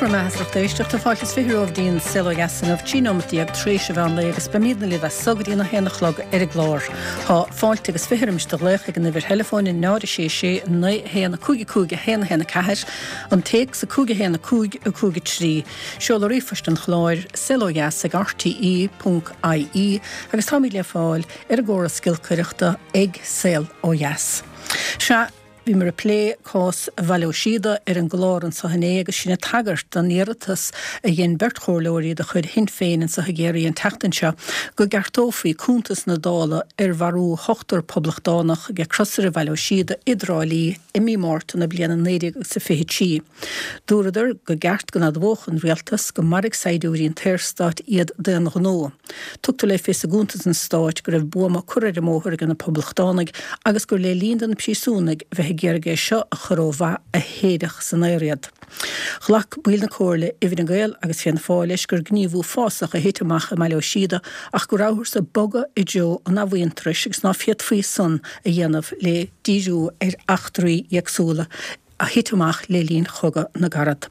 Go raibh maith agat as lucht éisteachta. Fáilte is 20 romhaibh dtí'n Saol Ó Dheas inniu, 13 nóimeat tar éis an mheán lae agus beimídne libh as so go dtí'n 1 a chlog ar an gclár. Tá fáilte agus 20 roimis do ghlaoch ag an uimhir theileafóin 0 6 6 9 1 5 5 1 1 4, an téacs 5 1 5 5 3. Seoladh ríomhphoist an chláir, saolodheas ag rte ponc ie agus táimid le fáil ar an gcóras giolcaireachta ag Saol Ó Dheas. Sea, bhíomar ag plé cás Bhaile Ó Síoda ar an gclár anso inné agus sinn ag tagairt don iarratas a dhein beirt chomhairleoirí de chuid Shinn Féin anso i gCiarraí an tseachtain seo go gceartófaí cuntas na Dála ar mharú hochtar poblachtánach ag crosaire Bhaile Ó Síoda i dTrá Lí i mí Márta na bliana 1923. Dúradar go gceart go n-admhódh an rialtas go maraigh saighdiúirí an tSaorstáit iad d'aon ghnó. Tugtar le fios i gcuntas an stáit go raibh buama curtha ar an mbóthar ag na poblachtánaigh agus gur le linn do na príosúnaigh bheith ag iarraidh é seo a chur ó mhaith a séideadh san aer iad. Ghlac baill na Comhairle i bhFine Gael agus Fianna Fáil leis gur gníomh uafásach a thit amach i mBaile Ó Síoda ach go rabhthas ag bogadh i dtreo an athmhuintearais agus ná féadfaí san a dhéanamh le díriú ar eachtraí éagsúla a thit amach le linn Chogadh na gCarad.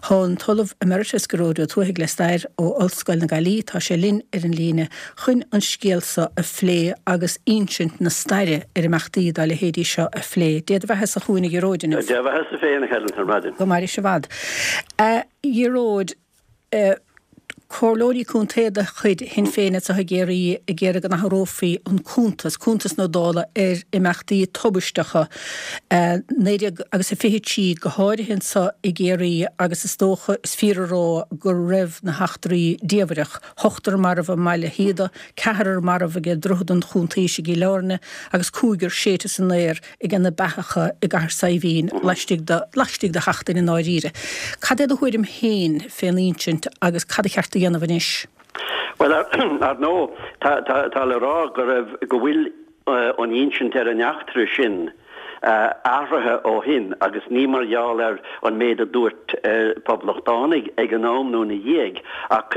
Tá an tOllamh Emeritus Gearóid Ó Tuathaigh le Stair ó Ollscoil na Gaillimhe, tá sé linn ar an líne chun an scéal seo a phlé agus insint na staire ar imeachtaí dá leithéidí seo a phlé. Dé do bheatha-sa chugainn a Ghearóid inniu. Dé do bheatha-sa féin a Helen ar maidin. Go mairis i bhfad. A Ghearóid, Comhairleoirí contae de chuid Shinn Féin anseo i gCiarraí ag iarraidh go n-athrófaí an cuntas, cuntas na Dála ar imeachtaí tubaisteacha 19 agus a 23 go háirithe anseo i gCiarraí agus is dócha, is fíor a rá go raibh na heachtraí diamhrach, ochtar marbh i mBaile Shíoda, ceathrar marbh ag Droichead an Chuntaois i gCill Airne agus cúigear séidte san aer ag na beathacha i gCathair Saidhbhín laistigh de, laistigh de sheachtain i ndáiríre. Cad é do thuairim féin fén insint agus cad a cheart a dhéanamh anois? Bhuel, ar ndóigh, tá, tá, tá le rá go raibh, go bhfuil an insint ar an eachtra sin athraithe ó shin agus ní mar gheall ar an méid a dúirt poblachtánaigh ag an am nó ina dhiaidh ach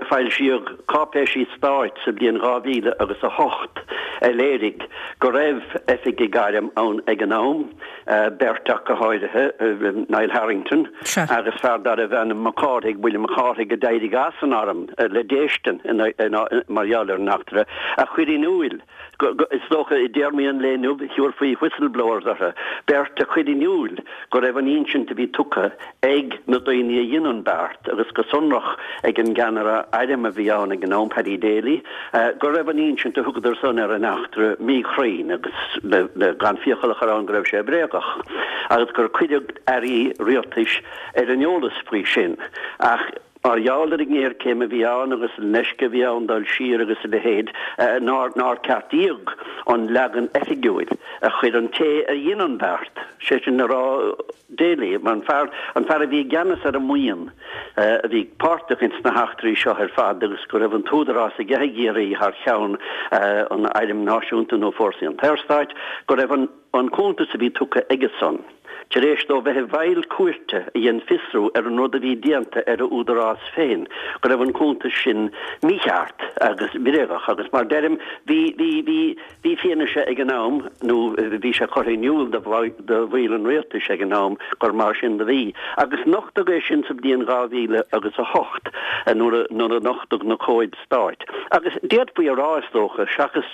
foilsíodh cáipéisí stáit sa bhliain 2000 agus 8 a léirigh go raibh oifigigh airm ann ag an am, beirt ach go háirithe, Niall Harrington agus fear darbh ainm Mac Cárthaigh, William Mac Cárthaigh, a d'éirigh as an arm le déistin mar gheall ar an eachtra, a chuir in iúil Is dócha, i dtéarmaí an lae inniu, thabharfaí whistleblowers orthu, beirt a chuir in iúil go raibh an insint a bhí tugtha ag na daoine a dhein an beart, agus go sonrach ag an gceannaire airm a bhí ann ag an am, Paddy Daly, go raibh an insint a thugadar san ar an eachtra míchruinn agus, le gan fiacail a chur ann, go raibh sé bréagach, agus gur cuireadh airí rialtais ar an eolas faoi sin. Ach. Mar gheall ar an ngéarchéim a bhí ann agus an leisce a bhí ann dul siar agus a leithéid, nár nár ceartaíodh an leagan oifigiúil a chuir an té a dhein an beart, sé sin le rá Daly, an fear an fear a bhí i gceannas ar an mbuíon a bhí páirteach ins na heachtraí seo ar fad agus go raibh an t-údarás aige i gCiarraí thar cheann an Airm Náisiúnta nó Fórsaí an tSaorstáit, go raibh an. An cuntas a bhí tugtha aige-san, tar éis dó bheith i bhfeighil cúirte a dhein fiosrú ar an rud a bhí déanta ar a údarás féin, go raibh an cuntas sin mícheart agus bréagach agus mar deirim, bhí, bhí, bhí, bhí fianaise ag an am nó bhí sé curtha in iúl do do bhaill an rialtais ag an am gur mar sin do bhí. Agus nochtadh é sin sa bhliain 2000 agus 8 nuair a, nuair a nochtadh na comhaid Stáit. Agus d'fhéadfaí a rá, is dócha, seachas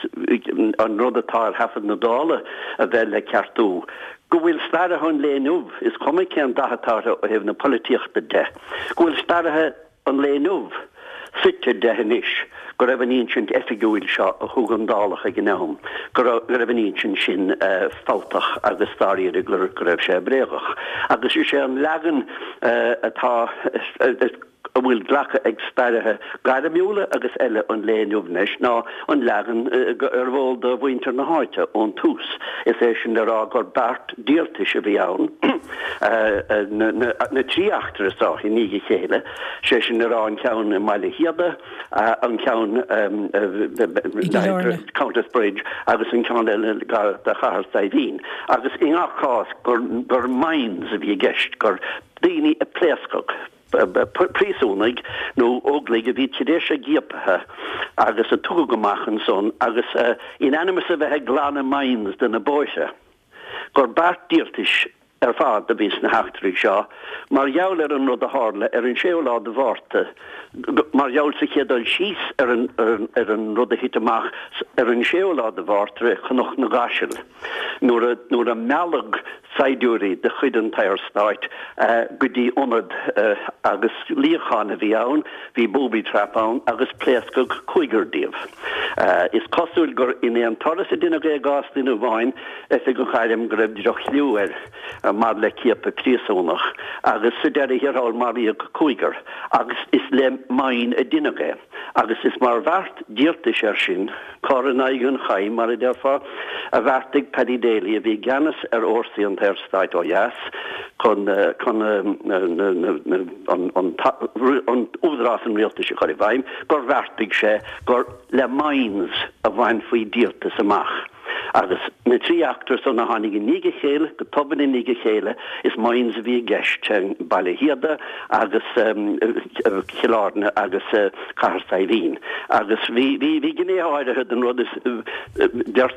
an rud atá ar thaifead na Dála a bheith le ceartú, go bhfuil staraithe an lae inniu, is cuma cén dath atá orthu ó thaobh na polaitíochta de, go bhfuil staraithe an lae inniu suite de anois go raibh an insint oifigiúil seo a thug an Dálach ag an am, go raibh an insint sin fabhtach agus dáiríre go raibh sé bréagach. Agus is é an leagan atá. a bhfuil glactha ag staraithe gairmiúla agus eile an lae inniu anois ná an leagan arbh eol do mhuintir na háite ón tús, is é sin le rá gur beart díoltais a bhí ann, na trí eachtra seo i ndiaidh a chéile, sé sin le rá an ceann i mBaile Shíoda, an ceann i Countess Bridge agus an ceann eile gar do Chathair Saidhbhín, agus i ngach cás gur mines a bhí i gceist, gur daoine a pléascadh. príosúnaigh nó óglaigh a bhí tar éis a gciapaithe agus a tugadh amach ansan agus in ainm is a bheith ag glanadh mines de na bóithre, gur beart díoltais. ar fad a bhí sna heachtraí seo mar gheall ar an rud a tharla ar an séú lá de Mhárta, mar gheall sa chéad dul síos ar an ar an rud a thit amach ar an séú lá de Mhárta i Cnoc na gCaiseal nuair a nuair a mealladh saighdiúirí de chuid an tSaorstáit go dtí ionad agus luíochán a bhí ann, bhí booby trap ann agus pléascadh cúigear díobh. Is cosúil gur in aon turas a deineadh é i gcás duine amháin, oifigeach airm go raibh droch-chliú air maidir le ciapadh príosúnach agus sa deireadh thiar thall maraíodh cúigear agus is le mine a deineadh é agus is mar bheart díoltais air sin, cor in aghaidh an chaim mar a déarfá, a bheartaigh Paddy Daly a bhí i gceannas ar fhórsaí an tSaorstáit ó dheas chun chun an údarás an rialtais a chur i bhfeidhm gur bheartaigh sé gur le mines a bhainfí díoltas amach. Agus na trí eachtra san a tháinig i ndiaidh a chéile, go tobann i ndiaidh a chéile, is mines a bhí i gceist, Baile Shíoda agus Cill Airne agus Cathair Saidhbhín. Agus bhí, bhí, bhí gnéithe áirithe den rud is, deir,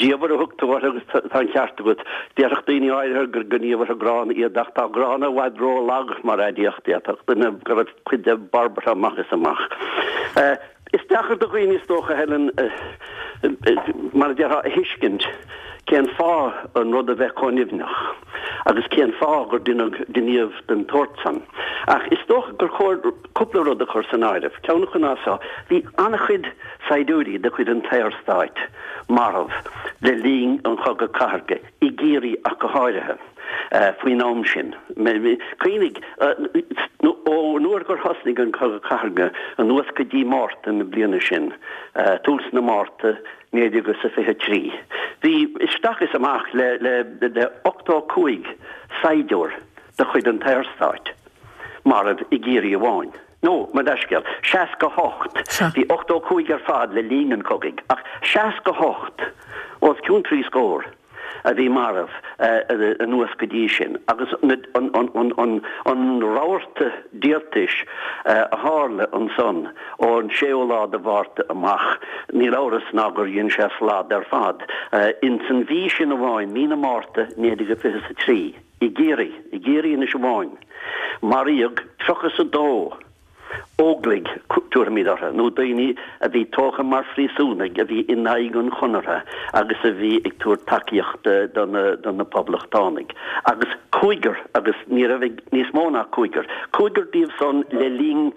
diamhair a thug tú orthu agus tá an ceart agat. Déarfadh daoine áirithe gur gníomhartha gránna iad ach tá gránna i bhfad ró-lag mar aidiacht, d'fhéadfadh duine go raibh cuid de barbartha amach is amach. Is deacair do dhaoine, is dócha, Helen, mar a déarfá, a thuiscint cén fáth an rud a bheith chomh nimhneach agus cén fáth gur deineadh gníomh den tsórt san. Ach is dócha gur chóir cúpla rud a chur san áireamh. Ceann acu ná seo, bhí an-chuid saighdiúirí de chuid an tSaorstáit marbh le linn an Chogaidh Cathartha, i gCiarraí ach go háirithe, faoin am sin. Cuimhnigh, ó nuair gur thosnaigh an Cogadh Cathartha anuas go dtí Márta na bliana sin, tús na Márta 1923, bhí isteach is amach le 85 saighdiúir de chuid an tSaorstáit marbh i gCiarraí amháin. Nó, mo leithscéal, 68. Bhí 85 ar fad le linn an chogaidh, ach 68, os cionn trí scór, a bhí marbh anuas go dtí sin. Agus an rabharta díoltais a tharla ansan ón séú lá de Mhárta amach, níl amhras ná gur dhein sé slad ar fad. Ins an mhí sin amháin, mí na Márta 1923, I gCiarraí, i gCiarraí anois amháin, maraíodh 32 óglaigh, tabharfaimid orthu, nó daoine a bhí tógtha mar phríosúnaigh a bhí in aghaidh an Chonartha agus a bhí ag tabhairt tacaíochta do na, do na Poblachtánaigh. Agus cúigear, agus ní raibh níos mó ná cúigear, cúigear díobh san le linn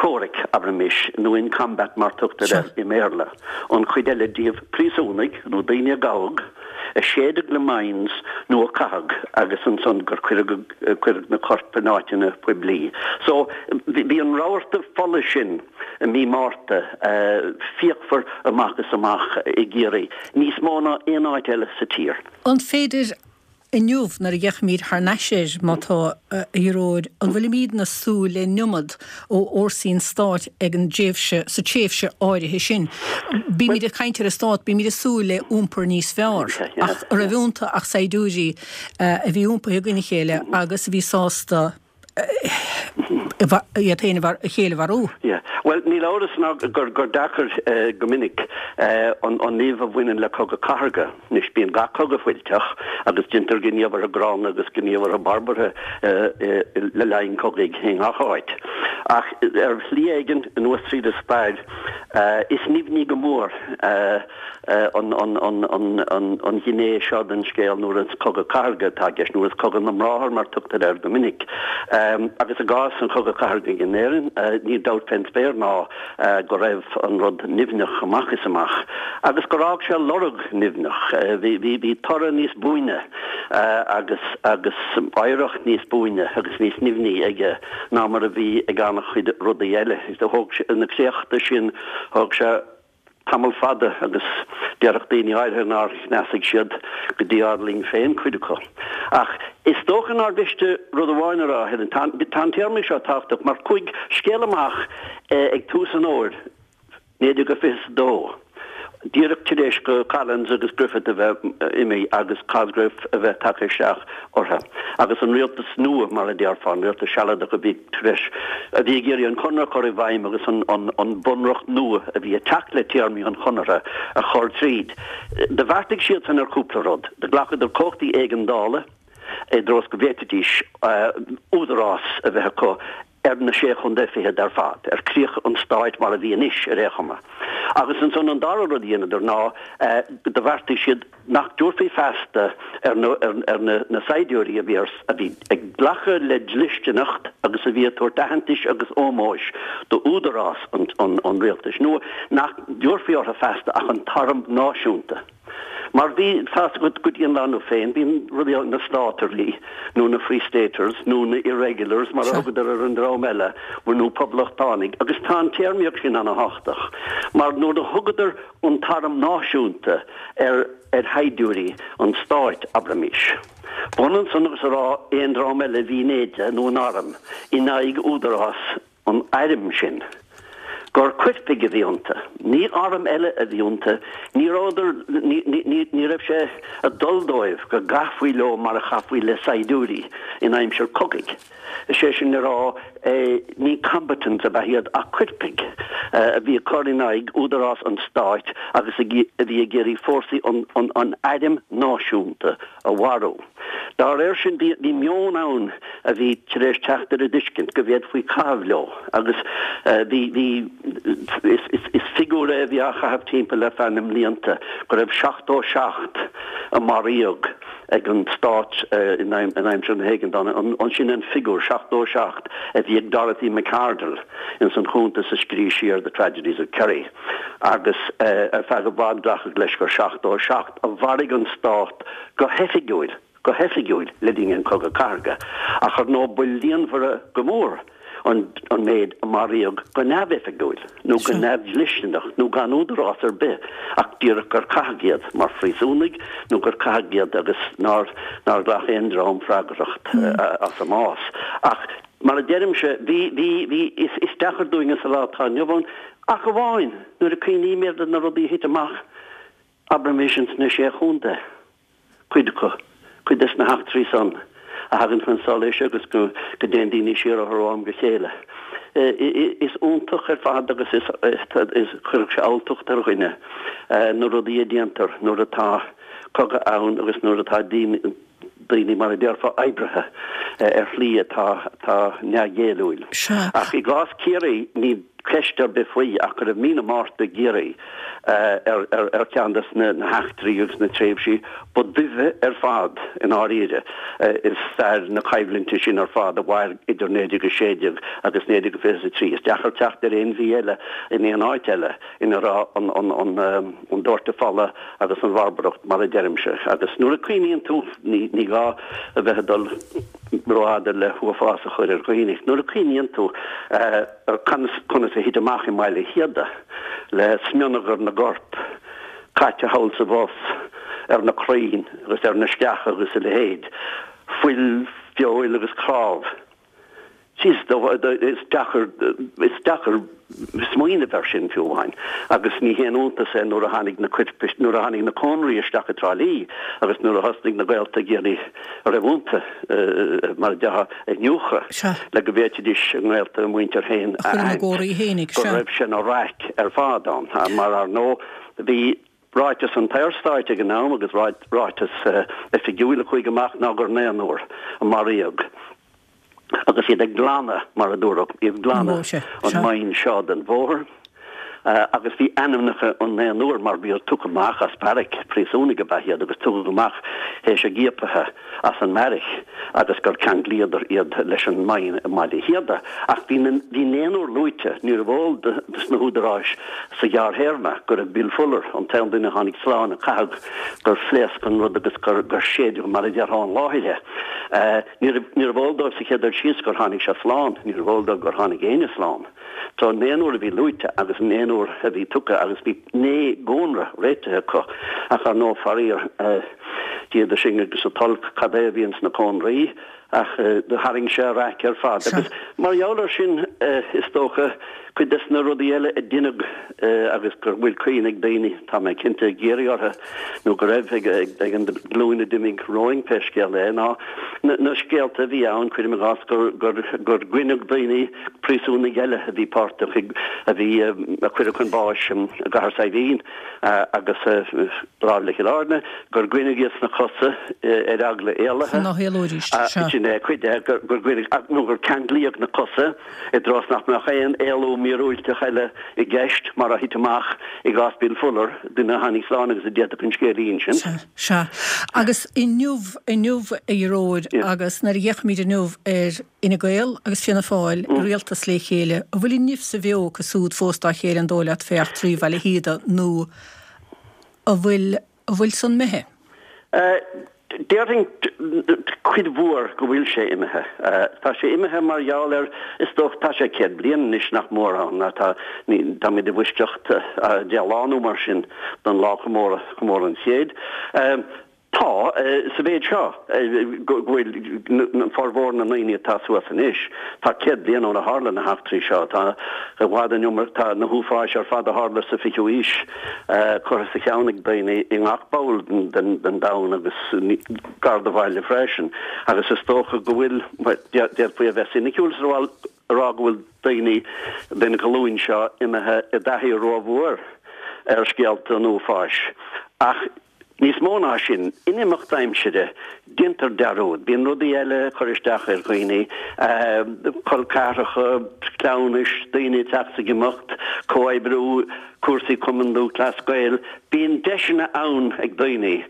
comhraic, abraimis, nó in combat mar tugtar air i mBéarla, an chuid eile díobh príosúnaigh nó daoine a gabhadh, a séideadh le mines nó a caitheadh agus ansan gur cuireadh na coirp in áiteanna poiblí. So, bhí an rabharta fola sin i mí Márta fíochmhar amach is amach i gCiarraí, níos mó ná aon áit eile sa tír. An féidir Inniu, nuair a fhéachaimid thar n-ais air, má tá, a Ghearóid, an bhfuilimídne ag súil le an iomad ó fhórsaí an stáit ag an dtréimhse, sa tréimhse áirithe sin? Bímid ag caint ar an stát, bímid ag súil le iompar níos fearr, ach an raibh iontu ach saighdiúirí a bhí iompaithe i gcoinne a chéile agus a bhí sásta iad féin a chéile a mharú. Yeah. Bhuel, níl amhras ná gur gur deacair go minic an an nimh a bhaineann le cogadh cathartha. Anois, bíonn gach cogadh fuilteach agus déantar gníomhartha gránna agus gníomhartha barbartha le linn cogaidh i ngach áit. Ach ar shlí éigin, anuas tríd an stair, is nimhní go mór an ghné seo den scéal nuair is cogadh cathartha atá i gceist, nuair is cogadh na mbráthar mar tugtar air go minic. Agus i gcás an chogaidh chathartha in Éirinn, níl dabht fén spéir ná go raibh an rud nimhneach amach is amach agus gur fhág sé lorg nimhneach. Bhí toradh níos buaine agus agus oidhreacht níos buaine agus níos nimhní aige ná mar a bhí ag an-chuid rudaí eile. Thóg sé na créachta sin, thóg sé tamall fada agus déarfadh daoine áirithe nár chneasaigh siad go dtí ár linn féin cuid acu. Ach is dócha nár mhiste rud amháin a rá, Helen, tá an téarmaí seo tábhachtach mar chuaigh scéal amach ag tús an fhómhair 1922, díreach tar éis do Collins agus Griffith a bheith imithe agus Cosgrave a bheith tagtha isteach orthu agus an rialtas nua, mar a déarfá, an rialtas sealadach a bhí tar éis, a bhí ag iarraidh an Conradh a chur i bhfeidhm agus an bunreacht nua a bhí ag teacht le téarmaí an Chonartha a chur tríd. Do bheartaigh siadsan ar chúpla rud. Do ghlacadar cumhachtaí éigeandála. i dtreo is go bhféadfaidís údarás a bheith acu ar na Sé Chontae Fichead ar fad, ar chríocha an stáit mar a bhí anois, ar aon chuma. Agus ansan an dara rud a dheineadar ná do bheartaigh siad nach dtabharfaí feasta ar na ar na saighdiúirí a bhí ar a bhí ag glacadh le dlisteanacht agus a bhí ag tabhairt aitheantais agus ómóis d'údarás an an an rialtais nua, nach dtabharfaí orthu feasta ach an tArm Náisiúnta. Mar bhí, tá's agat, go dtí an lá inniu féin, bíonn rudaí ann, na Státairí, nó na Free Staters, nó na Irregulars, mar a thugadar ar an dream eile, nó Poblachtánaigh, agus tá an téarmaíocht sin ana-thábhachtach, mar nuair a thugadar an tArm Náisiúnta ar ar shaighdiúirí an stáit, abraimís, b'ionann san agus a rá aon dream eile a bhí in éide nó in arm in aghaidh údarás an airm sin, gur coirpigh a bhí iontu. Ní arm eile a bhí iontu, ní rabhadar, ní raibh sé ag dul dóibh go gcaithfí leo mar a chaithfí le saighdiúirí in aimsir cogaidh. Is é sin le rá, ní combatants ab ea iad ach coirpigh a bhí ag cur in aghaidh údarás an stáit agus a bhí ag iarraidh fórsaí an airm náisiúnta a mharú. Dá réir sin, bhí meon ann a bhí tar éis teacht ar an dtuiscint go bhféadfaí caitheamh leo agus bhí, bhí, is, is figiúr é a bhí á chaitheamh timpeall ar feadh na mblianta, go raibh 77 a maraíodh ag an stát in aimsir na hÉigeandála. Sin an figiúr, 77, a bhí ag Dorothy Macardle ins an chuntas a scrígh sí ar The Tragedies of Kerry agus ar feadh i bhfad glacadh leis gur 77 a mharaigh an stát go hoifigiúil, go hoifigiúil, le linn an Chogadh Cathartha, ach ar ndóigh ba líonmhaire go mór an an méid a maraíodh go neamhoifigiúil, nó go neamhdhlisteanach, nó gan údarás ar bith, ach díreach gur caitheadh iad mar phríosúnaigh, nó gur caitheadh iad agus nár nár ghlac aon dream freagracht as a mbás. Ach mar a deirimse, bhí, bhí, bhí, is, is deacair dúinne sa lá atá inniu ann, ach amháin nuair a cuimhnímid ar na rudaí a thit amach, Abraimis ins na Sé Chontae, cuid acu, cuid des na heachtraí san a thagann chun solais agus go dtéann daoine siar orthu ó am go chéile. Is iontach ar fad agus is cuirfeadh sé alltacht ar dhuine na rudaí a déantar nuair atá cogadh ann agus nuair atá daoine, daoine, mar a déarfá, oibrithe ar shlí atá atá neamhghéilliúil. Ach i gcás Ciarraí, níl ceist ar bith faoi ach go raibh mí na Márta i gCiarraí ar ar cheann des na heachtraí agus na tréimhsí ba duibhe ar fad i ndáiríre i stair na coimhlinte sin ar fad a mhair idir 1916 agus 1923. Is deacair teacht ar aon mhí eile in aon áit eile ina raibh an an an doirteadh fola agus an bharbaracht mar a deirimse. Agus nuair a cuimhníonn tú, ní gá a bheith ag dul rófhada le huafás a chur ar dhaoine, nuair a cuimhníonn tú ar conas a thit amach i mBaile Shíoda le smionagar na gcorp caite thall is abhus ar na crainn agus ar na sceacha agus a leithéid, fuil, feoil agus cnámh. Is deacair, is deacair smaoineamh air sin fiú amháin. Agus ní haon iontas é nuair a tháinig na coirp, nuair a tháinig na cónraí isteach i dTrá Lí agus nuair a thosnaigh na gaolta ag iarraidh a raibh iontu, mar a déarfá, a iniúchadh le go bhféadfaidís a ngaolta, a muintir féin a aithint, go raibh sé ina raic ar fad ann. Mar ar ndóigh bhí ráiteas an tSaorstáit ag an am agus ráiteas oifigiúil a chuaigh amach ná gur naonúr a maraíodh. agus iad ag glanadh, mar a dúradh, ag glanadh an mine seo den bhóthar, agus bhí ainmneacha an naonúir mar bhí tugtha amach as beairic, príosúnaigh ab ea iad agus tugadh amach théis a gciapaithe as an mbeairic agus gur ceanglaíodar iad leis an mine i mBaile Shíoda. Ach bhí na, bhí naonúr luaite, níorbh eol dos na húdaráis sa ghearrthéarma go raibh Bill Fuller, an t-aon duine a tháinig slán, a caitheadh gur phléasc an rud agus gur, gur séideadh mar a déarfá an láthair é. Níorbh eol dóibh sa chéad dul síos gur tháinig sé slán, níorbh eol dóibh gur tháinig éinne slán. So an naonúr a bhí luaite agus an naonúr a bhí tugtha agus bhí naoi gcónra réitithe acu ach ar ndóigh faraor, Dia sinn agus an t-olc cad é a bhí ins na cónraí ach do tharraing sé a raic ar fad agus mar gheall ar sin is dócha. Cuid des na rudaí eile a deineadh agus go bhfuil cuimhne ag daoine, tá mé cinnte, i gCiarraí orthu, nó go raibh ag an ghlúin a d'imigh romhainn pé scéal é, ná na scéalta a bhí ann, cuirim i gcás, gur goineadh daoine, príosúnaigh eile a bhí páirteach i, a bhí, a cuireadh chun báis i gCathair Saidhbhín agus láimh le Cill Airne, gur goineadh iad sna cosa ar eagla éalaithe. Chun ná héalóidís, sea. Sin é cuid de, gur goineadh, nó gur ceanglaíodh na cosa. i dtreo is nach mbeadh aon éalú míorúilteach eile i gceist, mar a thit amach i gcás Bill Fuller, duine a tháinig slán agus a d'fhéadfadh an scéal a insint. Sea, sea. Agus inniu, inniu, a Ghearóid, agus nuair a fhéachaimid inniu ar Fhine Gael agus Fianna Fáil i rialtas le chéile, an bhfuil an nimh sa bheo acu súd fós dá chéile an dóigh leat fé eachtraí Bhaile Shíoda nó an bhfuil, An bhfuil san imithe? Déarfainn cuid mhór go bhfuil sé imithe. Tá sé imithe mar gheall ar, is dócha, tá sé 100 bliain anois nach mór ann, tá, táimid i bhfoisceacht 10 lá nó mar sin don lá comóradh, comóradh an chéid. Tá, sa mhéid seo, go bhfuil formhór na ndaoine atá suas anois, tá 100 bliain óna tharla na heachtraí seo, tá i bhfad an iomarca, tá na huafáis ar fad a tharla sa fichiú haois curtha sa cheann ag daoine i ngach ball den domhan agus gar do bhaile freisin agus is dócha go bhfuil, d'fhéadfaí a bheith soiniciúil is a rá go bhfuil daoine den ghlúin seo imithe i dtaithí rómhór ar scéalta an uafáis ach Níos mó ná sin, in imeacht aimsire, déantar dearúd. Bíonn rudaí eile ag cur isteach ar dhaoine, col ceathracha, cleamhnais, daoine ag teacht is ag imeacht, comhoibriú, cúrsaí Cumann Lúthchleas Gael. Bíonn deiseanna ann ag daoine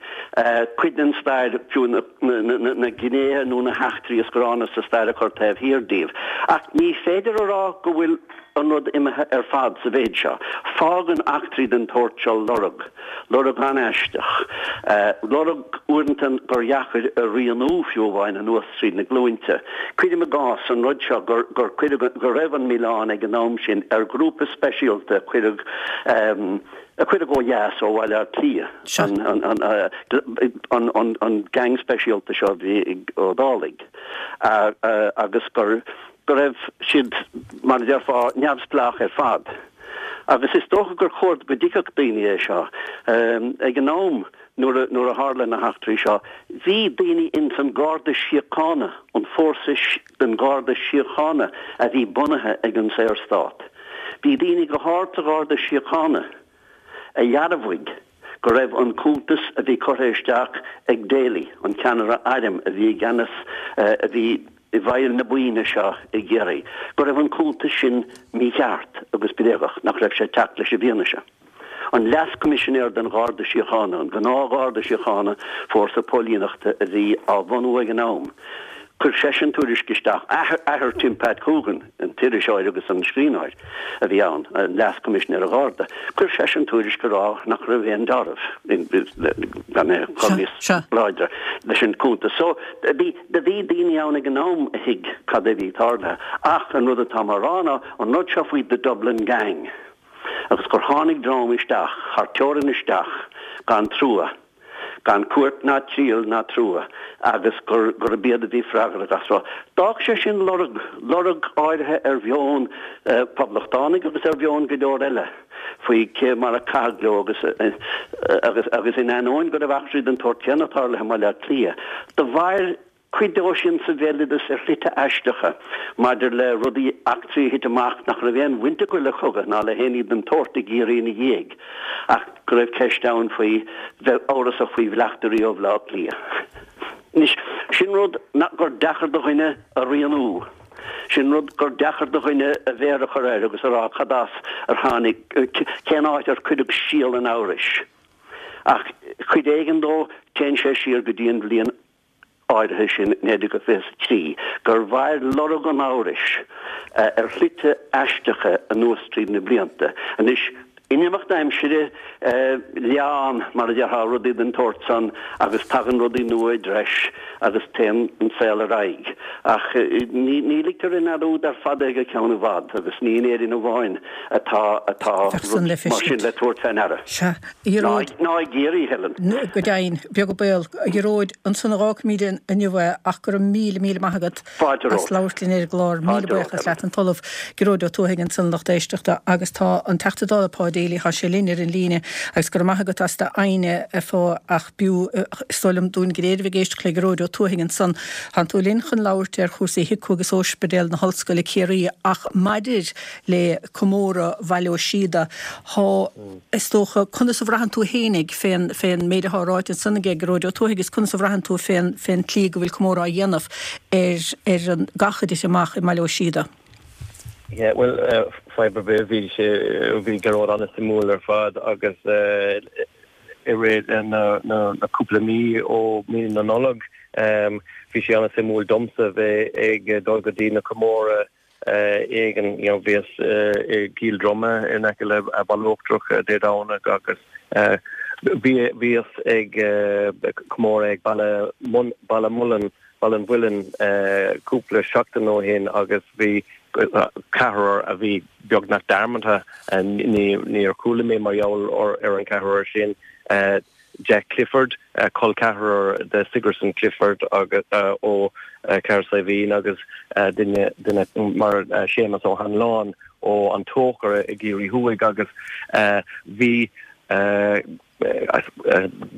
cuid den stair, fiú na gnéithe nó na heachtraí is gránna sa stair a chur taobh thiar díobh. Ach ní féidir a rá go bhfuil an rud imithe ar fad sa mhéid seo. Fágann eachtraí den tsórt seo lorg, lorg an-aisteach, lorg uaireanta gur dheacair a rianú fiú amháin anuas tríd na glúinte. Cuirim i gcás an rud seo gur gur cuireadh, go raibh an milleán ag an am sin ar ghrúpa speisialta a cuireadh, a cuireadh ó dheas ó Bhaile Átha Cliath, an, an, an, an, an gang speisialta seo a bhí ag Ó Dálaigh agus gur, go raibh siad, mar a déarfá, neamhspleách ar fad. Agus is dócha gur chóir go dtuigfeadh daoine é seo. Ag an am nuair a, nuair a tharla na heachtraí seo, bhí daoine ins an Garda Síochána, an fórsa den Gharda Síochána a bhí bunaithe ag an Saorstát, bhí daoine go hard sa Gharda Síochána a dhearbhaigh go raibh an cuntas a bhí curtha isteach ag Daly, an ceannaire airm a bhí i gceannas, a bhí i bhfeighil na buíne seo i gCiarraí, go raibh an cuntas sin mícheart agus bréagach, nach raibh sé ag teacht leis an bhfianaise. An Leas-Choimisinéir den Gharda Síochána, an gnáth-Gharda Síochána, fórsa póilíneachta a bhí á bhunú ag an am, chuir seisean tuairisc isteach, athair Tim Pat Coogan, an t-iriseoir agus an scríbhneoir a bhí ann, an Leas-Choimisinéir an Gharda, chuir seisean tuairisc ag rá nach raibh aon dealramh, gan é a chur níos láidre, leis an gcuntas. So, bhí, do bhí daoine ann ag an am a thuig cad é bhí tarlaithe. Ach an rud atá mé a rá ná an rud seo faoi The Dublin Gang agus gur tháinig dream isteach, thar teorainn isteach, gan trua. gan cúirt ná triail ná trua agus gur gurb iad a bhí freagrach as seo. D'fhág sé sin lorg, lorg áirithe ar mheon poblachtánaigh agus ar mheon go leor eile faoi cé mar a caitheadh leo agus agus agus in ainneoin go raibh eachtraí den tsórt céanna tarlaithe i mBaile Átha Cliath, do mhair cuid dó sin sa bhéaloideas ar shlite aisteacha maidir le rudaí, eachtraí a thit amach nach raibh aon bhaint acu le cogadh ná le haon ní den tsórt i gCiarraí ina dhiaidh, ach go raibh ceist ann faoi bheith amhrasach faoi bhleachtairí ó Bhaile Átha Cliath. Anois, sin rud gur deacair do dhuine a rianú. Sin rud gur deacair do dhuine a mhéar a chur air agus a rá cad as ar tháinig, cén áit ar cuireadh síol an amhrais. Ach cuid éigin dó, téann sé siar go dtí an bhliain áirithe sin, 1923, gur mhair lorg an amhrais ar shlite aisteacha anuas tríd na blianta. Anois, In imeacht aimsire, leánn, mar a déarfá, rudaí den tsórt san agus tagann rudaí nua i dtreis agus téann an saol ar aghaidh. Ach ní ligtear i ndearúd ar fad é go ceann i bhfad agus ní in Éirinn amháin atá atá rud mar sin le tabhairt fé ndeara. Sea, a Ghearóid. Ná i gCiarraí, Helen. Go deimhin, beag an baol. A Ghearóid, ansan a dh'fhágfaimid inniu é ach go raibh míle, míle maith agat. Fáilte as romhat. labhairt linn ar an gclár. Míle Fáilte romhat, buíochas Helen. leat. An tOllamh Gearóid Ó Tuathaigh ansan, lucht éisteachta, agus tá an Teachta Dála Pa Daly, tá sé linn ar an líne agus go raibh maith agat as d'fhoighne a Pha ach b'fhiú, is dóigh liom, dúinn go léir a bheith ag éisteacht le Gearóid Ó Tuathaigh ansan. Tánn tú linn chun labhairt ar chúrsaí HIQA agus Ospidéal na hOllscoile Ciarraí ach maidir le comóradh Bhaile Ó Síoda, thá, is dócha, conas a bhraitheann tú fhéinig fén, fén méid athá ráite ansan aige Gearóid Ó Tuathaigh agus conas a bhraitheann tú fén, fén tslí go bhfuil comóradh á dhéanamh ar, ar an gcath a thit amach i mBaile Ó Síoda? Yeah, bhuel, fadhb ar bith, bhí sé, bhí Gearóid an-suimiúil ar fad agus i rith na, na, na cúpla mí ó mí na Nollag, bhí sé an-suimiúil domsa bheith ag dul go dtí na comóradh éigin, you know, bhíos i gCill Droma in aice le Baile Uachtarach Dé Domhnaigh agus bhí, bhíos ag comóradh ag Baile, Baile Mullin, Baile an Mhuilinn cúpla seachtain ó shin agus bhí ceathrar a bhí beagnach dearmadta, ní, níor chuala mé mar gheall ar an ceathrar sin. Jack Clifford, col ceathrar de Sigerson Clifford agus ó Chathair Saidhbhín agus duine duine mar Séamus Ó hAnluain ó An Tóchar i gCiarraí Thuaidh agus bhí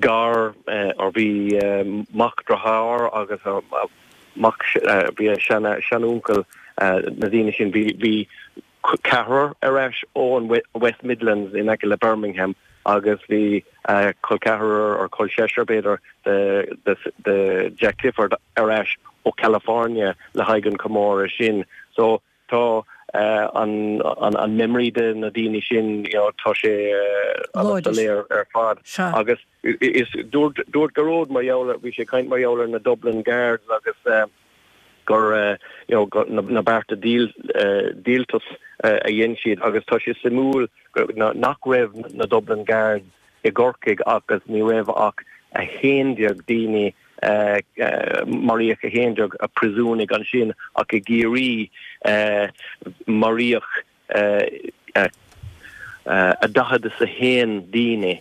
gar or bhí mac dearthár agus mac bhí a seanuncail na daoine sin bhí bhí ceathrar ar ais ó an West Midlands in aice le Birmingham agus bhí col ceathrar or col seisear b'fhéidir de Jack Clifford ar ais ó California le haghaidh an comóradh sin. So tá an an memory de na daoine sin you know tá sé an-soiléir ar fad agus is dúirt dúirt Gearóid mar gheall ar bhí sé ag caint mar gheall ar na Dublin Guards agus gur you know na bearta díoltais a dhein siad agus tá sé suimiúil nach raibh na Dublin Guards i gCorcaigh agus ní raibh ach 11 daoine maraíodh 11 príosúnaigh ansin ach i gCiarraí maraíodh 41 daoine,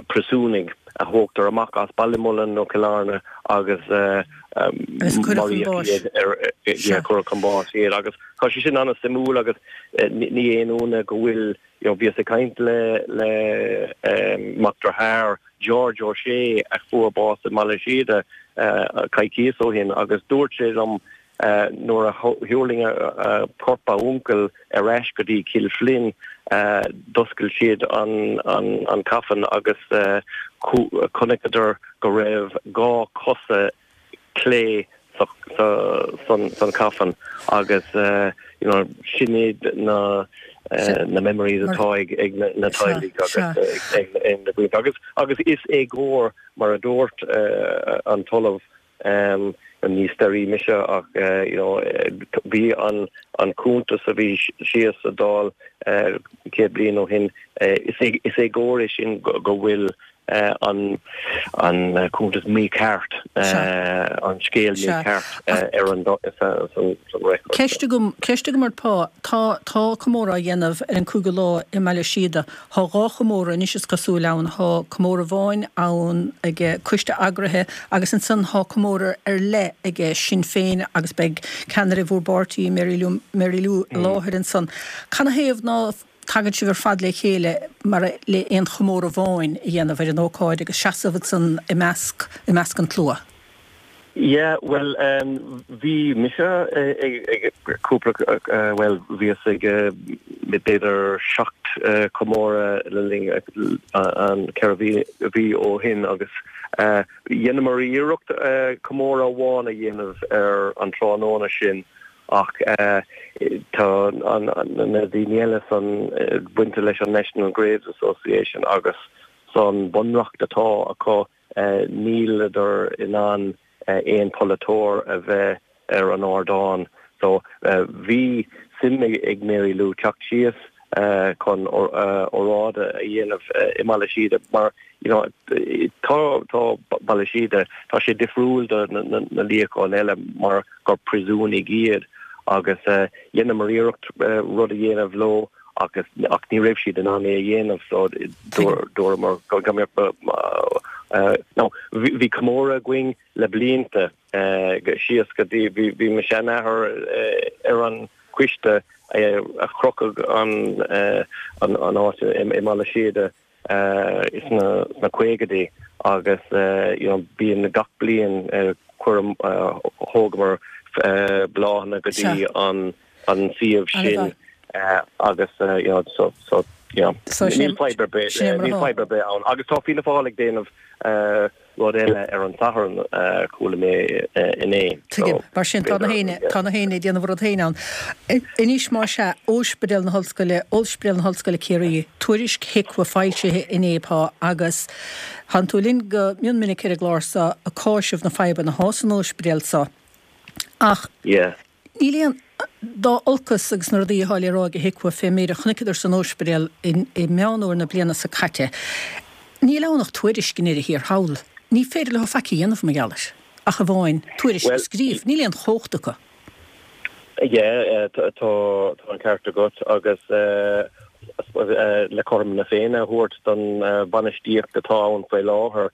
príosúnaigh, a thógtar amach as Ballymullen nó Cill Airne agus maraíodh iad ar, yeah, cuireadh chun báis iad agus tá sé sin an-suimiúil agus ní aon ionadh go bhfuil, you know, bhíos ag caint le le mac dearthár George O'Shea a fuair bás i mBaile Síoda coicíos ó shin agus dúirt sé liom Nuair a thuirling corp a uncail ar ais go dtí Cill Floinn, d'oscail siad an coffin agus chonaiceadar go raibh 2 cosa clé san coffin agus you know sin iad na na memories atá ag na teaghlaigh agus ag na daoine agus agus is éagóir mar a dúirt an tOllamh Ní staraí mise ach you know bhí an an cuntas a bhí síos sa Dáil 100 bliain ó shin, is éagóir é sin go bhfuil an an cuntas mícheart, an scéal mícheart ar an san record. Ceist agam, ceist agam ort Pa, tá tá comóradh á dhéanamh ar an cúigiú lá i mBaile Síoda. Thá dhá chomóradh anois is cosúil ann. Thá comóradh amháin ann ag coiste eagraithe agus ansan thá comóradh ar leith ag Sinn Féin agus beidh ceannaire bhúr bpáirtí, Mary Lou, Mary Lou i láthair ansan. Canathaobh ná tagann sibh ar fad le chéile mar le aon chomóradh amháin a dhéanamh ar an ócáid agus seasamh ansan i measc, i measc an tslua? Yeah, bhuel, bhí mise ag cúpla, bhuel, bhíos ag b'fhéidir 7 comóradh le linn an 4 mhí ó shin agus dheineamar iarracht comóradh amháin a dhéanamh ar an tráthnóna sin ach tá na daoine eile san bainte leis an National Graves Association agus san bunreacht atá acu Níleadar in ann aon pholaiteoir a bheith ar an ardán. So bhí suim ag Mary Lou teacht síos. chun óráid a dhéanamh i mBaile Síoda mar you know tá tá Baile Síoda tá sé difriúil do na luíocháin eile mar gur príosúnaigh iad agus dheineamar iarracht rud a dhéanamh leo agus ach ní raibh siad in ann é a dhéanamh so dúramar go mbeadh no bhí comóradh againn le blianta síos go dtí bhí mo sheanathair ar an choiste a chruthaigh an áit i mBaile Síoda sna caogaidí agus you know bíonn gach bliain chuir thógamar bláthanna go dtí an an suíomh sin agus you know so so you know níl fadhb ar bith níl fadhb ar bith ann agus tá Fianna Fáil ag déanamh rud eile ar an Satharn, chuala mé inné. Tuigim. Mar sin, tá na héinne, tá na héinne ag déanamh a rud féin ann. Anois, más ea, Ospidéal na hOllscoile, Ospidéal na hOllscoile Ciarraí, tuairisc HIQA foilsithe inné, pá, agus tánn tú linn go mion minic ar an gclár so ag cáiseamh na fadhbanna athá san ospidéal so. Ach. Yeah. Níl aon, dá olcas agus na rudaí athá le rá ag HIQA fén méid a chonaiceadar san óispidéal i Meán Fhómhair na bliana so caite, níl ann ach tuairisc i ndeireadh thiar thall. Ní féidir leo faic a dhéanamh mar gheall air, ach amháin tuairisc a scríobh. Níl aon chumhacht acu. Yeah, tá an ceart agat agus le cothrom na Féinne a thabhairt don bhainistíocht atá ann faoi láthair,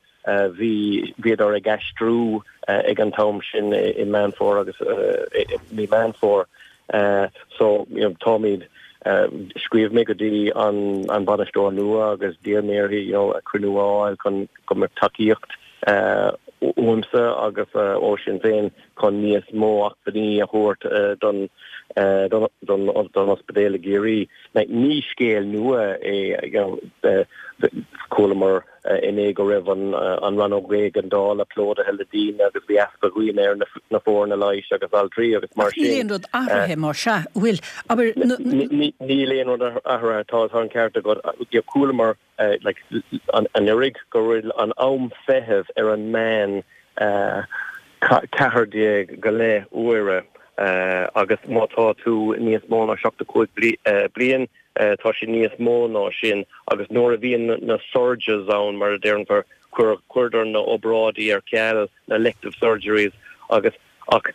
Bhí, bhíodar ag aistriú ag an t-am sin i Meán Fómhair agus i mí Meán Fómhair. So, you know, táimid, scríobh mé go dtí an an bainisteoir nua agus d'iarr mé uirthi, you know, cruinniú a fháil chun go mbeadh tacaíocht uaimse agus ó Sinn Féin chun níos mó acmhainní a thabhairt don don don ospidéal i gCiarraí. Ní scéal nua é, you know, chualamar inné go raibh an rannóg éigeandála plódaithe le daoine agus bhí easpa dhaoine ar na foirne leighis agus altraí agus mar sin. Ach níl aon rud athraithe mar sea, bhfuil? Abair, na. Níl aon rud athraithe, tá an ceart agat. Chualamar like anuraidh go bhfuil an am feithimh ar an meán 14 go leith uaire agus má tá tú níos mó ná 75 bliain, Tá sé níos mó ná sin agus nuair a bhíonn na surges ann, mar a déarfar, cuirtear na obráidí ar ceal, na elective surgeries agus ach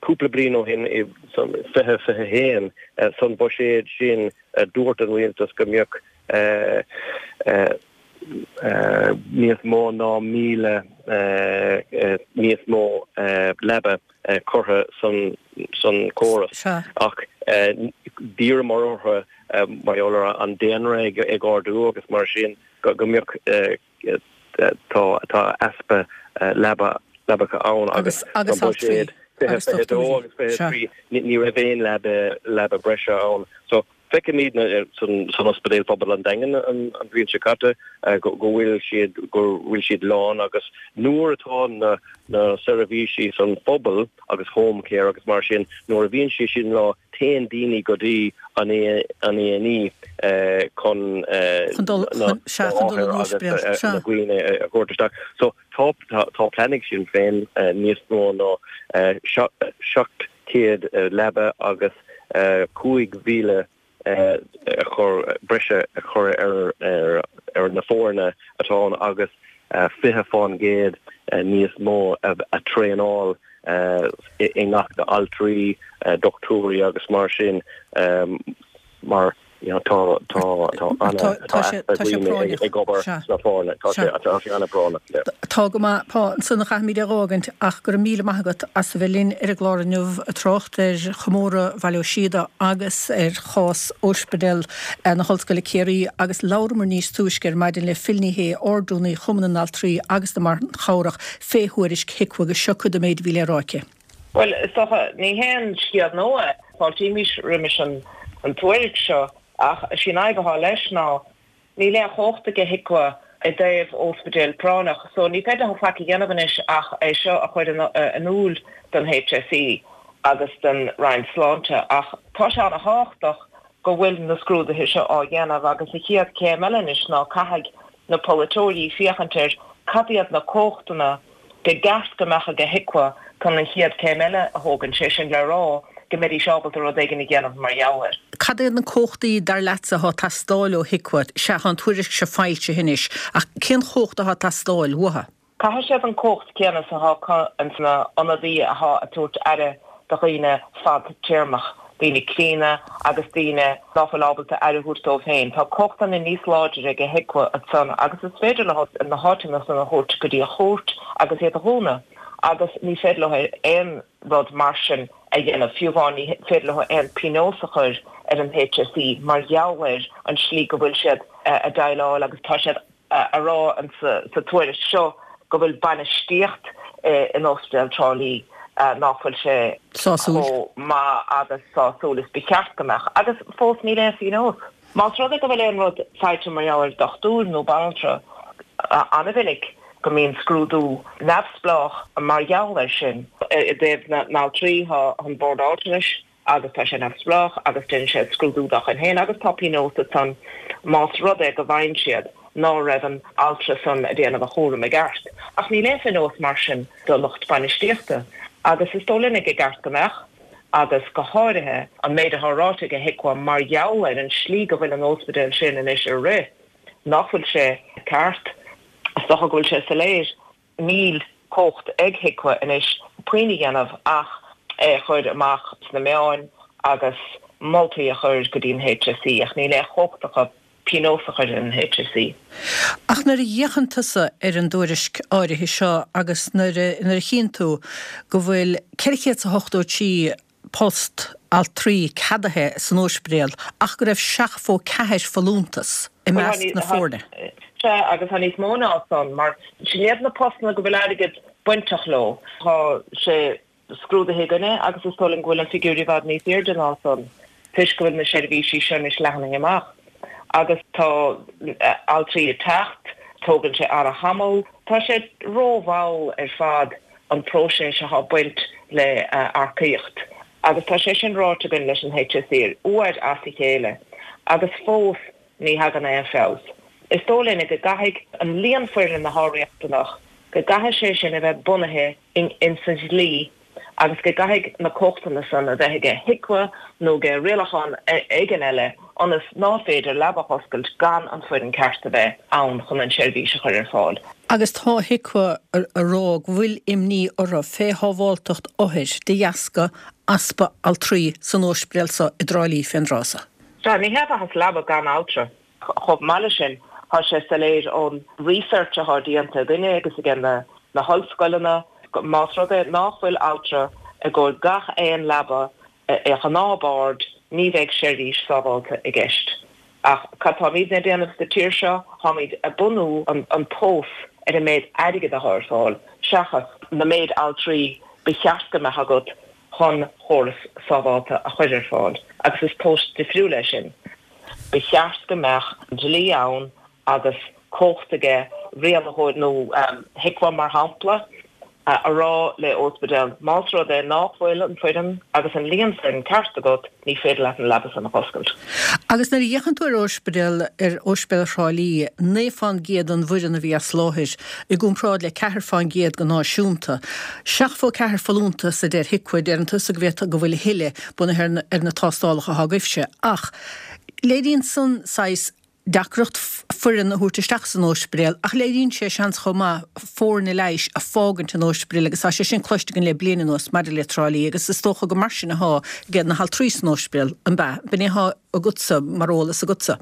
cúpla bliain ó shin, i 2021, san buiséad sin, dúirt an rialtas go mbeadh níos mó ná 1,000 níos mó leaba curtha san córas. Ach d'iarramar orthu, mar gheall ar an daonra ag ardú agus mar sin, go mbeadh, tá easpa leaba, leabacha ann agus san buiséad 2022 agus 23 ní raibh aon leaba breise ann. So Feicimid san Ospidéal Pobail an Daingean an bhliain seo caite go bhfuil siad go bhfuil siad lán agus nuair atá na na seirbhísí san phobal agus home care agus mar sin nuair a bhíonn sé sin lán téann daoine go dtí an an A&E chun na othair agus na daoine a thabhairt isteach. So tá tá plean ag Sinn Féin níos mó ná 700 leaba agus 5,000 a chur, breise a chur ar na foirne atá ann agus 20% níos mó a traenáil i ngach altraí, dochtúirí agus mar sin mar you know tá tá tá ana tá easpa daoine ag obair sna foirne tá sé tá sé ana bhrónach. Tá go maith pá ansan a chaithfimid é dh'fhágaint ach go raibh míle maith agat as a bheith linn ar an gclár inniu ag trácht ar chomóradh Bhaile Ó Síoda agus ar chás Ospidéal na hOllscoile Ciarraí agus labhramar níos túisce ar maidin le Phil Ní Sheaghdha, Ard-Rúnaí Chumann na nAltraí agus na mBan Chabhrach fé thuairisc HIQA agus seo cuid den méid a bhí le rá aici. Bhuel, is dócha, ní haon scéal nua é. Fáiltímis roimis an tuairisc seo ach is í an fhadhb atá leis ná níl aon chumhacht aige HIQA i dtaobh óspidéal práinneach so ní féidir leo faic a dhéanamh anois ach é seo a chur in iúl don HSE agus don Roinn Sláinte ach tá sé ana-thábhachtach go bhfuil na scrúduithe seo á dhéanamh agus an chéad chéim eile anois ná caithfidh na polaiteoirí féachaint ar cad iad na cumhachtanna ba cheart go mbeadh aige HIQA chun an chéad chéim eile a thógaint, sé sin le rá. go mbeidís ábalta rud éigin a dhéanamh mar gheall air. Cad iad na cumhachtaí, dar leatsa, atá ag teastáil ó HIQA? Sea, tá an tuairisc seo foilsithe anois, ach cén chumhacht atá ag teastáil uathu? Caithfidh siad an cumhacht céanna is atá acu ins na ionadaí athá ag tabhairt aire do dhaoine fad-téarmach, daoine críonna agus daoine ná fuil ábalta aire a thabhairt dóibh féin. Tá cumhachtanna níos láidre ag HIQA ansan agus is féidir leo na háiteanna san a thabhairt go dtí an chúirt agus iad a dhúnadh agus ní féidir leo aon rud mar sin a dhéanamh, fiú amháin ní féidir leo aon pionós a chur ar an HSE mar gheall ar an slí go bhfuil siad a déileáil agus tá siad a rá sa tuairisc seo go bhfuil bainistíocht in Ospidéal Trá Lí ná fuil sé chomh maith agus sásúil is ba cheart go mbeadh agus fós níl aon phionós. Más rud é go bhfuil aon rud faighte mar gheall ar dochtúir nó banaltra, an-mhinic go mbíonn scrúdú neamhspleách mar gheall air sin. I dtaobh na n-altraí, tá an Bord Altranais agus tá sé neamhspleách agus déanann sé scrúdú dá chuid féin agus tá pionós ansan más rud é go bhfaigheann siad ná raibh an altra san a déanamh a chúram i gceart. Ach níl aon phionós mar sin do lucht bainistíochta agus is dóigh linne gur ceart go mbeadh agus go háirithe an méid atá ráite ag HIQA mar gheall ar an slí go bhfuil an óspidéal sin anois a rith nach bhfuil sé ceart. Is dócha go bhfuil sé soiléir. Níl cumhacht ag HIQA anois puinn a dhéanamh ach é a chur amach sna meáin agus moltaí a chur go dtí an HSE ach níl aon chumhacht acu pionós a chur ar an HSE. Ach nuair a fhéachann tusa ar an dtuairisc áirithe seo agus nuair a nuair a chíonn tú go bhfuil 483 post altraí ceadaithe san ospidéal ach go raibh 74 folúntas i measc na foirne. Sea, agus tá níos mó ná san, mar sin iad na postanna go bhfuil airgead bainteach leo. Tá sé scrúdaithe againne agus is dóigh liom go bhfuil an figiúr i bhfad níos airde ná san toisc go bhfuil na seirbhísí seo anois leathnaithe amach agus tá altraí ag teacht, tógann sé an-tamall. Tá sé rómhall ar fad an próiseas atá ag baint le earcaíocht agus tá sé sin ráite againn leis an HSE uair as a chéile agus fós ní thagann aon feabhas. Is dóigh linne go gcaithfidh an líon foireann atá riachtanach, go gcaithfidh sé sin a bheith bunaithe ins an dlí agus go gcaithfidh na cumhachtanna san a bheith aige HIQA nó aige rialachán éigin eile ionas ná féidir leaba a dh'oscailt gan an foireann ceart a bheith ann chun an seirbhís a chur ar fáil. Agus tá HIQA a rá go bhfuil imní orthu fé shábháltacht othair de dheasca easpa altraí san ospidéal so i dTrá Lí fén dtráth so. Sea, ní hé mhaitheas leaba gan altra. Chomh maith leis sin, tá sé soiléir ón research atá déanta againne agus aige na hollscoileanna, más rud é nach bhfuil altra i gcomhair gach aon leaba i ngnáthbhord, ní bheidh seirbhís sábháilte i gceist. Ach cad táimidne ag déanamh sa tír seo? Táimid ag bunú an tomhas ar an méid airgid atá ar fáil seachas na méid altraí ba cheart go mbeadh agat chun chóras sábháilte a chur ar fáil. Agus is tomhas difriúil é sin. Ba cheart go mbeadh dlí ann agus cumhacht aige rialaitheoir nó HIQA mar shampla a rá le ospidéal más rud é nach bhfuil an foireann agus an líon foireann ceart agat ní féidir leat an leaba san a dh'oscailt. Agus nuair a fhéachann tú ar ospidéal ar Ospidéal Thrá Lí, 9 fán gcéad den bhfoireann a bhí as láthair, i gcomparáid le 4 fán gcéad go náisiúnta. 74 folúntas a deir HIQA, deireann tusa go bhféadfadh go bhfuil a thuilleadh, bunaithe ar na tástálacha atá agaibhse. Ach léiríonn san saghas deacracht foireann a thabhairt isteach san ospidéal ach léiríonn sé seans chomh maith foirne leighis a fágaint an ospidéal agus tá sé sin cloiste againn le bliain anuas maidir le Trá Lí agus is dócha gur mar sin athá aige na haltraí san ospidéal, an b'ea? B'in é athá agatsa mar eolas agatsa?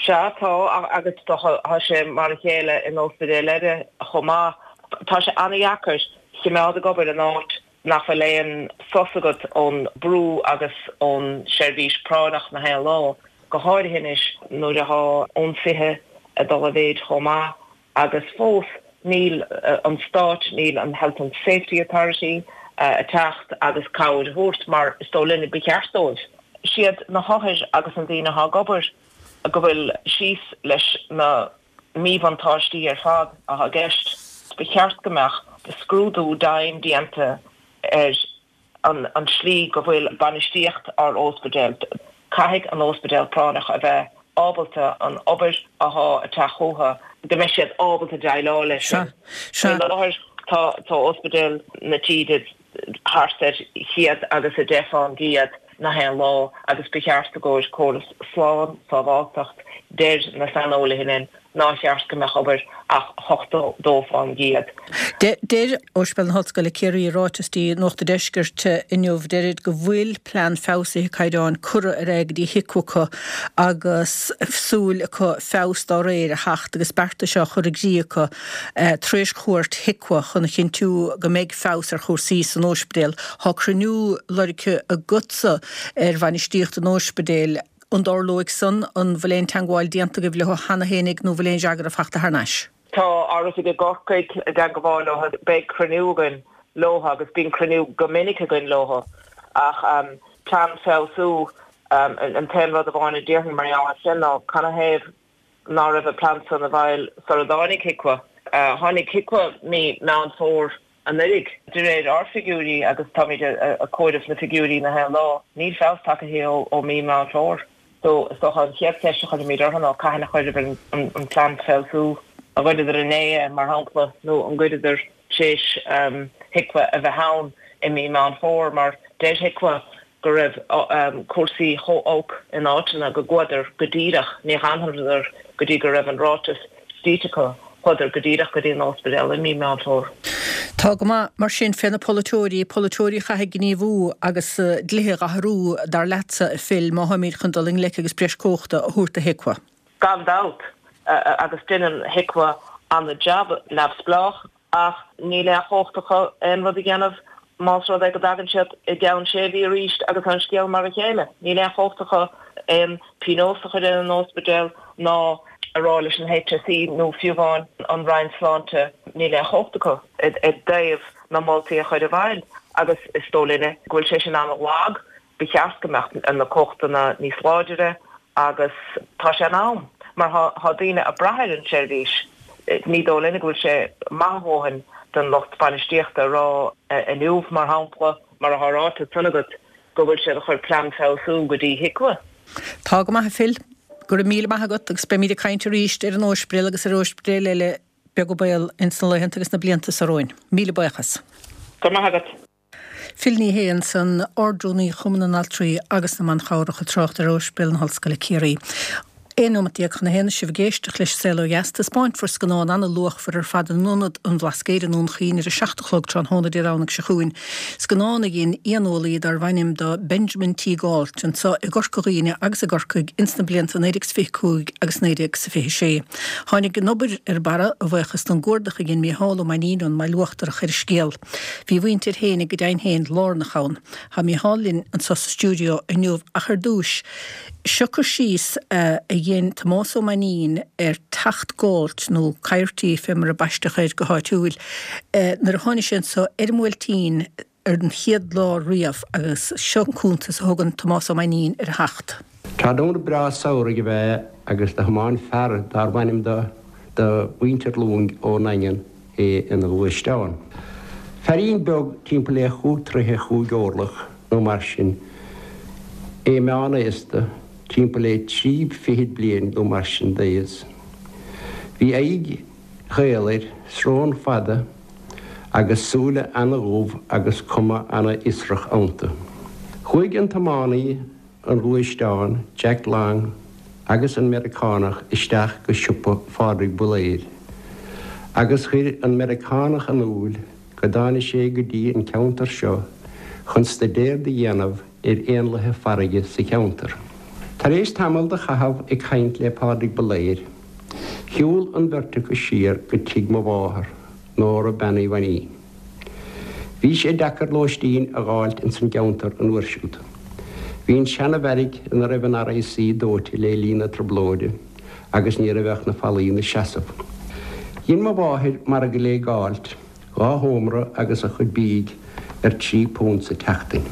Sea, tá, agus tá sé mar a chéile in ospidéil eile chomh maith. Tá sé an-dheacair chimeád ag obair in áit nach bhfuil aon sos agat ón brú agus ón seirbhís práinneach na haon lá, go háirithe anois nuair athá ionsaithe ag dul i mhéid chomh maith agus fós níl an Stát, níl an Health and Safety Authority ag teacht agus cabhair a thabhairt mar is dóigh linne ba cheart dóibh. Siad na hothair agus na daoine athá ag obair go bhfuil síos leis na míbhuntáistí ar fad atá i gceist. Ba cheart go mbeadh scrúdú dian déanta ar an tslí go bhfuil bainistíocht ár óspidéal. Caithfidh an óspidéal práinneach a bheith ábalta an obair athá ag teacht chúthu, go mbeidh siad ábalta déileáil leis sin. Faoi láthair tá óspidéil na tíre. thart ar 110% nach aon lá agus ba cheart i gcomhair córas slán, sábháltacht, deir na saineolaithe linn nár cheart go mbeadh obair ach 82%. Deir Ospidéal na hOllscoile Ciarraí i ráiteas dtí Nuacht an Deiscirt inniu, deirid go bhfuil plean feabhsaithe caighdeáin curtha ar aghaidh go dtí HIQA acu agus súil acu feabhas dá réir a theacht agus beartais á chur i gcrích acu tar éis chuairt HIQA chun a chinntiú go mbeidh feabhas ar chúrsaí san óispidéal. Tá cruinniú lorgtha agatsa ar bhainistíocht an óispidéil. An dtarlóidh san? An bhfuil aon teangmháil déanta agaibh leo cheana fhéinig nó bhfuil aon fhreagra fachta thar n-ais? Tá ár oifig i gCorcaigh i dteangmháil leo. Beidh cruinniú againn leo agus bíonn cruinniú go minic againn leo. Ach plean feabhsú, an t-aon rud amháin a déarfainn mar gheall air sin ná canathaobh ná raibh an plean san i bhfeighil sara dtáinig HIQA. Tháinig HIQA mí Meán Fómhair anuraidh. De réir ár figiúirí, agus táimid ag comhaireamh na figiúirí na haon lá, níl feabhas tagtha ó mí Meán Fómhair. So, is dócha an chéad cheist a chuirfimid orthu ná cathain a chuireadar an plean feabhsú, an gcuireadar inné é, mar shampla, nó an gcuireadar tar éis HIQA a bheith ann i mí Meán Fómhair, mar deir HIQA go raibh cúrsaí chomh olc in áiteanna go gcuadar go díreach, ní dh'fhanadar go dtí go raibh an ráiteas scríte acu, chuadar go díreach go dtí an ospidéal i mí Meán Fómhair. Tá go maith, mar sin, fé na polaiteoirí, polaiteoirí a chaithfidh gníomhú agus dlíthe dh'athrú, dar leatsa, a Phil, má tháimíd chun dul i ngleic agus breis cumhachta a thabhairt do HIQA. Gan dabht, agus deineann HIQA ana-jab neamhspleách. Ach níl aon chumhacht acu aon rud a dhéanamh más rud é go dtagann siad i gceann sé mhí arís agus an scéal mar a chéile. Níl aon chumhacht acu aon pionós a chur ar an ospidéal ná a rá leis an HSE nó fiú amháin an Roinn Sláinte, níl aon chumhacht acu i dtaobh na moltaí a chur i bhfeighil agus is dóigh linne go bhfuil sé sin an-lag. Ba cheart go mbeadh na cumhachtanna níos láidire agus tá sé in am mar tá daoine ag brath ar an tseirbhís. Ní dóigh linne go bhfuil sé maith a dhóthain don lucht bainistíochta a rá inniu, mar shampla, mar atá ráite ansan agat, go bhfuil siad ag cur plean feabhsú go dtí HIQA. Tá go maith, a Phil. Go raibh míle maith agat agus beimíd ag caint arís ar an óispidéal agus ar óispidéil eile beag an baol ins na laethanta agus na blianta so romhainn. Míle buíochas. Go raibh maith agat. Phil Ní Sheaghdha ansan, Ard-Rúnaí Chumann na nAltraí agus na mBan Chabhrach ag trácht ar Ospidéal na hOllscoile Ciarraí. 11 nóimeat chun a haon is sibh ag éisteacht leis an Saol Ó Dheas. Taispeáinfear scannán ana-luachmhar ar fad in Ionad an Bhlascaoid i nDún Chaoin ar a 7 a chlog tráthnóna Dé Domhnaigh seo chugainn. Scannán a dhein éaneolaí darbh ainm do Benjamin T. Gault anso i gCorca Dhuibhne agus i gCorcaigh ins na blianta 1925 agus 1926. Tháinig an obair ar barra a bhuíochas don gcuardach a dhein Mícheál Ó Mainnín ón mBaile Uachtarach ar an scéal. Bhí a mhuintir fhéinig go deimhin féin lárnach ann. Tá Mícheál linn anso sa stiúideo inniu ach ar dtúis, seo cur síos a dhein Tomás Ó Mainnín ar teacht Gault, nó Coyote fé mar a baisteadh air go háitiúil, nuair a tháinig sé anso ar an mBuailtín ar an chéad lá riamh agus seo an cuntas a thugann Tomás Ó Mainnín ar a theacht. Tráthnóna breá samhraidh ab ea é agus do thiomáin fear dárbh ainm do do mhuintir Long ón nDaingean é ina ghluaisteán. Feairín beag timpeall le chúig troithe chúig orlach nó mar sin, é meán-aosta, timpeall le trí fichid bliain nó mar sin d'aos. Bhí aghaidh chaol air, srón fada agus súile ana-dhubh agus cuma ana-fhiosrach iontu. Chuaigh an tiománaí an ghluaisteáin, Jack Long, agus an Meiriceánach isteach go siopa Phádraig Builéir agus chuir an Meiriceánach in iúil go dtáinig sé go dtí an ceantar seo chun staidéar do dhéanamh ar éanlaithe farraige sa cheantar. Tar éis tamall do chaitheamh ag caint le Pádraig Builéir, shiúl an bheirt acu siar go tigh mo mháthar, Nóra Bean Uí Mhainnín. Bhí sé deacair lóistín a dh'fháilt ins an gceantar an uair siúd. Bhí an seana-bheairic ina raibh an RIC dóite lé linn na Trioblóide agus ní raibh ach na fallaí 'na seasamh. Dhein mo mháthair margadh lé Gault, dhá sheomra agus a chuid bídh ar £3 sa tseachtain.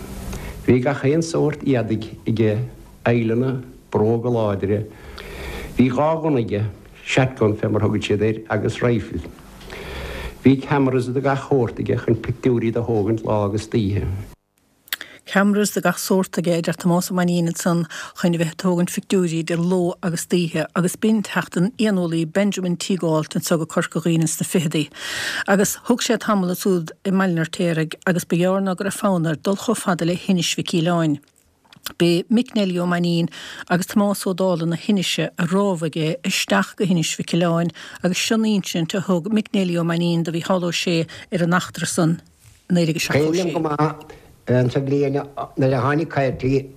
Bhí gach aon sórt éadaigh aige, aidhleanna, bróga láidre. Bhí dhá ghunna aige, shotgun fé mar thugaid siad air, agus rifle. Bhí cameras de gach shórt aige chun pictiúirí do thógaint lá agus d'oíche. Cameras de gach sórt aige, a deir Tomás Ó Mainnín ansan, chun a bheith ag tógaint phictiúirí de ló agus d'oíche agus b'in teacht an éaneolaí Benjamin T. Gault anso go Corca Dhuibhne sna ficheadaí. Agus thug sé tamall ansúd i mBaile an Fheirtéaraigh agus ba ghearr ná go raibh fonn air dul chomh fada le hInis Mhic Aoileáin. B'é Mick Neilí Ó Mainnín agus Tomás Ó Dálaigh na hInise a rámhaigh é isteach go hInis Mhic Aoileáin agus seo an insint a thug Mick Neilí Ó Mainnín do Mhícheál Ó Sé ar an eachtra san i 1976. Cuimhin liom go maith an sa bhliain nuair a tháinig coirpigh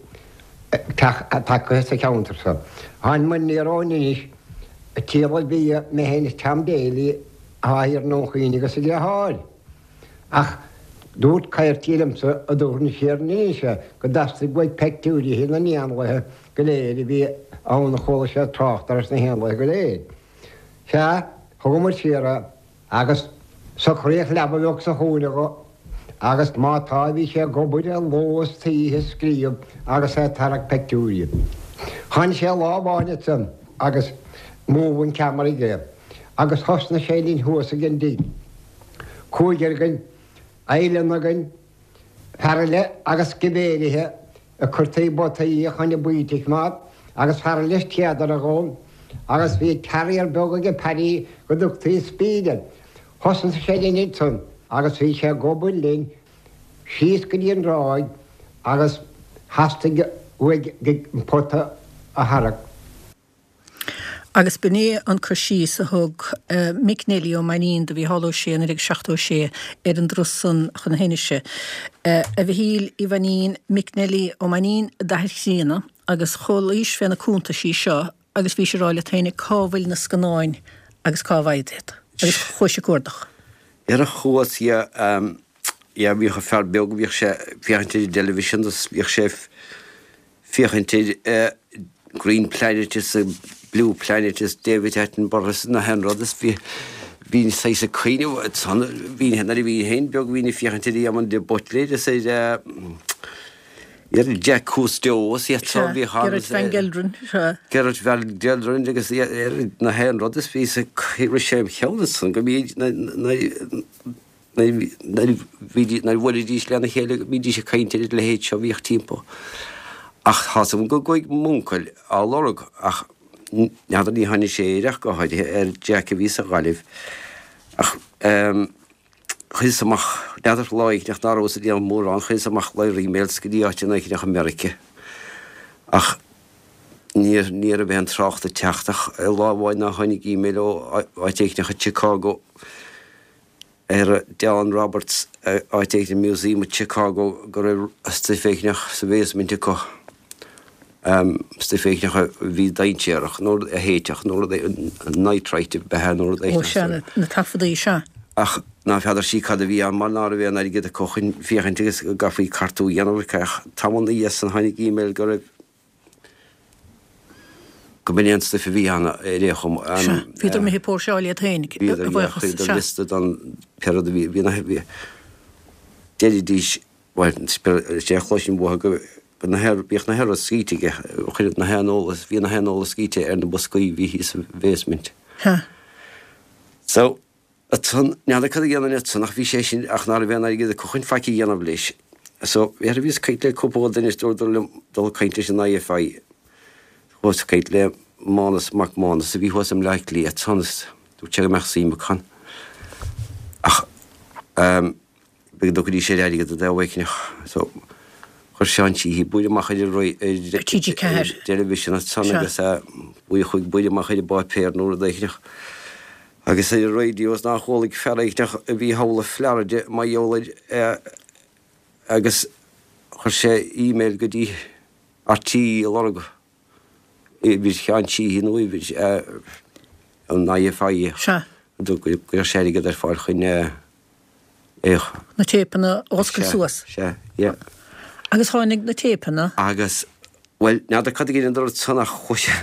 tagtha sa cheantar seo. Tháinig muid aniar ón Inis ag triall ar bhia, mé féin is Tom Daly atá thiar i nDún Chaoin agus a dheartháir. Ach dúirt coirpigh liomsa a dtabharfainn siar an Inis é go dteastaigh uaidh peictiúirithe na n-éanlaithe go léir a bhí ann a chuala sé trácht air sna héanlaithe go léir. Sea, thugamar siar é agus socraíodh leaba bheag sa chúinne dho agus má tá bhí sé ag obair ló is oíche ag scríobh agus é ag tarrac peictiúirí. Tháinig sé lá amháin ansan agus moving camera aige agus thosnaigh sé linn thuas ag an dtigh. Cúigear againn, oileán againn, fear eile agus sciméirithe ag cur taobh bataí a choinne baoite a choimeád agus fear eile is téadaire dhó agus bhí terrier beag aige Paddy go dtugtaí Speed air. Thosnaigh sé linn ansan agus bhí sé ag obair linn síos go dtí an dtráigh agus theastaigh uaidh an pota a tharrac. Agus b'in é an cur síos a thug Mick Neilí Ó Mainnín do Mhícheál Ó Sé i 1976 ar an dturas san chun na hInise. A Mhichíl Uí Mhainnín, Mick Neilí Ó Mainnín d'athair chríonna, agus chualaís fé na cuntaisí seo agus bhís ag rá leat féin cá bhfuil na scannáin agus cá bhfaighid iad? Agus chuais ag cuardach. Ar a chuas, yeah, yeah, bhíodh an fear beag, bhíodh sé ag féachaint ar an dteilifísean agus bhíodh sé féachaint ar Green Planet is Blue Planet is David Attenborough is na haon rud is bhí bhínn saghas ag cuimhneamh ansan bhínn nuair a bhínn féin beag bhínn ag féachaint ar Éamon de Buitléir is ar ar Jacques Cousteau is iad so bhí Gerrit van Gelderen sea. Gerrit van Gelderen agus ar na haon rud is bhí sa rith sé im cheann ansan go mbíodh na na Nuair a bhuailidís lena chéile bhídís ag caint ar a leithéid seo a bhíodh timpeall. Ach tá 's agam go gcuaigh m'uncail á lorg ach n'fheadar ní tháinig sé air ach go háirithe ar Jack a bhí sa Ghaillimh. Ach chuireas amach, n'fheadar lá éigin ná rabhas ag déanamh mórán, chuireas amach lear emails go dtí áiteanna éigin i Meirice. Ach ní ní raibh aon trácht ag teacht ach lá amháin ná tháinig email ó áit éigin i Chicago ar Don Roberts, áit éigin i Museum i Chicago go raibh stuif éigneach sa bhasement acu, stuif éigneach a bhí dainséarach nó a théiteach nó rud nitrite ab ea nó rud éigneach. Ó sea, na taifeadaí, sea. Ach ná feadar sí cad a bhí ann mar ná raibh aon airgead acu chun féachaint agus go gcaithfí cartú a dhéanamh ach tamall ina dhiaidh san tháinig email go raibh Go mb'in é an stuif a bhí ann ar aon chuma. Sea, bhíodar imithe ag póirseáil iad féin, a bhuíochas, sea. Bhíodar liosta don pé rud a bhí, bhí na, bhí, deiridís, bhuel, is é a chloisinn uathu go, go na haon, bhíodh na haon rud scríte aige, chuireadh na haon eolas, bhí na haon eolas scríte ar na boscaí a bhí thíos sa bhasement. Sea. So, Ansan, n'fheadar cad a dhéanfainn ansan ach bhí sé sin, ach ná raibh aon airgead acu chun faic a dhéanamh leis. So, bhí, bhíos ag caint le cúpla duine is dúradar liom dul ag caint leis an IFI. Chuas ag caint le Mánas Mac Mánais a bhí thuas i mBleá Cliath ansan is dúirt sé go mbeadh suim acu ann. Ach, ehm, B'fhéidir go dtugfaidís air airgead i dtaobh éicneach. So, chuir Seán Sheehy buaille amach ar an ar TG4. dteilifísean ansan agus buaille chuig buaille amach ar an bpáipéar nó rud éicneach. Agus ar an raidió is nár chualaigh fear éicneach a bhí thall i Florida mar gheall air agus chuir sé email go dtí RTÉ ag lorg uimhir Sheáin Sheehy nó uimhir an IFI. Sea. Go gcuirfeadh sé airgead ar fáil chun é a. Na téipeanna a oscailt suas. Sea, yeah. Agus tháinig na téipeanna. Agus, bhuel, n'fheadar cad a dheineadar ansan ach chuaigh sé,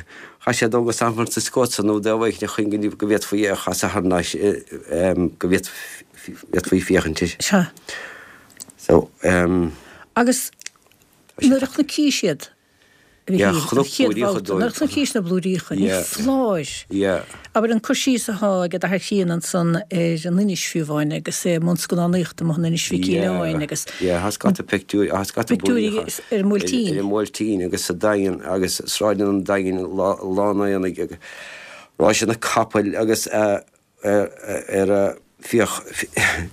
chaith sé dul go San Francisco ansan nó dtaobh éicneach chun go go bhféadfaí é a chasadh thar n-ais, go bhféadfaí féachaint air. Sea. So, ehm. Agus nuair a chonaic siad. A Mhichíl, an chéad bhabhta, nuair a chonaic na blúiríocha, ní foláir. Abair an cur síos atá ag d'athair críonna ansan ar an Inis fiú amháin agus é i mbun scannánaíochta amuigh in Inis Mhic Aoidh agus. Yeah, tá scata pictiúirí, tá scata blúiríocha ar an mBuailtín. Ar an mBuailtín agus sa Daingean agus sráideanna an Daingin lá an aonaigh agus ráiseanna capaill agus ar fiach,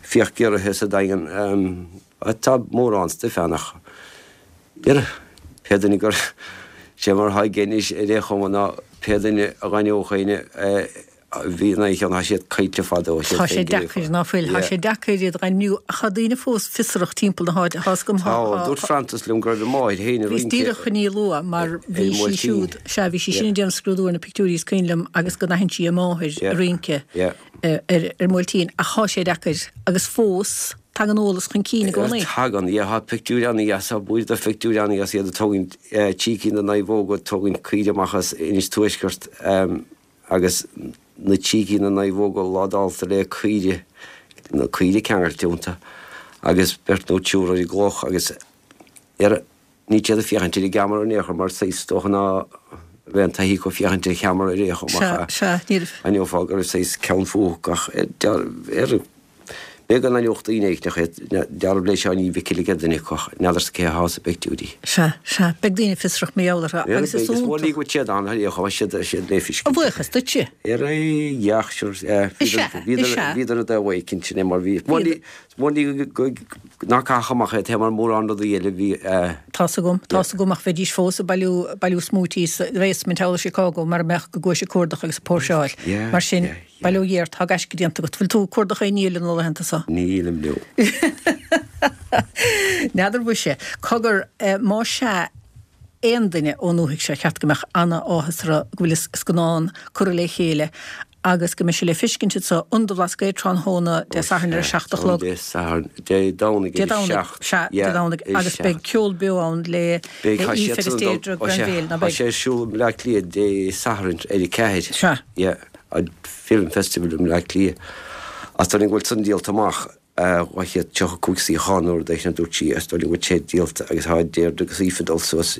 fiach giorraithe sa Daingean. Tá mórán stuif ann ach ar pé duine gur sé mar atá aige anois ar aon chuma ná pé duine a dh'aithneodh éinne a bhí ina cheann, tá siad caillte fadó, tá siad Tá sé deacair, ná fuil? Tá sé deacair iad a dh'ainmniú ach tá daoine fós fiosrach timpeall na háite, tá 'fhios agam, tá. Tá, dúirt Frances liom go raibh a máthair féin ag rince. Bhíos díreach chun í a lua mar bhí sí siúd, sea, bhí sí sin ag déanamh scrúdú ar na pictiúirí is cuimhin liom agus go n-aithin sí a máthair ag rince ar an mBuailtín ach tá sé deacair agus fós tagann eolas chun cinn i gcónaí. Tagann, yeah, tá pictiúir an-dheas, tá blúire de phictiúirí an-dheas, iad ag tógaint trí cinn de naomhóga, ag tógaint caoire amach as Inis Tuaisceart agus na trí cinn de naomhóga ládálta le caoire, na caoire ceangailte iontu agus beirt nó triúr ar an gcloch agus ar Níl siad ag féachaint ar an gceamara in aon chor mar saghas is dócha ná bheadh an taithí acu féachaint ar cheamara ar aon chuma ach aithneofá go raibh saghas ceann fúthu ach ar b'fhéidir go n-aithneodh daoine éicneach iad dealramh le Seáinín Mhicil ag duine acu ach n'fheadarsa cé athá sa bpictiúirí. Sea, sea, beidh daoine fiosrach mar gheall orthu agus is iontach. Is mór go bhfuil siad ann ar aon chuma siad siad le feiscint. A bhuíochas duitse. Ar aghaidh, sure, bhíodar i dtaobh éicint sin é mar bhí. Mhór go ná caithfeadh amach é taobh mar mórán rudaí eile bhí. Tá's agam, tá's agam ach bheidís fós ag bailiú, bailiú smúití sa bhasement thall i Chicago mara mbeadh go gcuais ag cuardach agus ag póirseáil. Mar sin, bail ó Dhia ort, tá gaisce déanta agat. Bhfuil tú ag cuardach aon ní eile na laethanta so? Nílim, no. N'fheadar mhuise. Cogar, más ea aon duine ón ndúthaigh seo, cheart go mbeadh ana-áthas orthu go bhfuil an scannán curtha le chéile agus go mbeidh sé le feiscint anso in Ionad an Bhlascaoid tráthnóna Dé Sathairn ar a 7 a chlog. Dé Sathairn, Dé Domhnaigh ar a 7. Sea, Dé Domhnaigh, agus beidh ceol beo ann le Aoife agus Deirdre Granville, ná beidh? Tá sé ar siúl i mBleá Cliath Dé Sathairn ar a 4. Sea. Yeah, an Film Festival i mBleá Cliath. Is dóigh liom go bhfuil san díolta amach. 235 suíochán nó rud éigin a dúirt sí is dóigh liom go bhfuil sé díolta agus tá Deirdre agus Aoife ag dul suas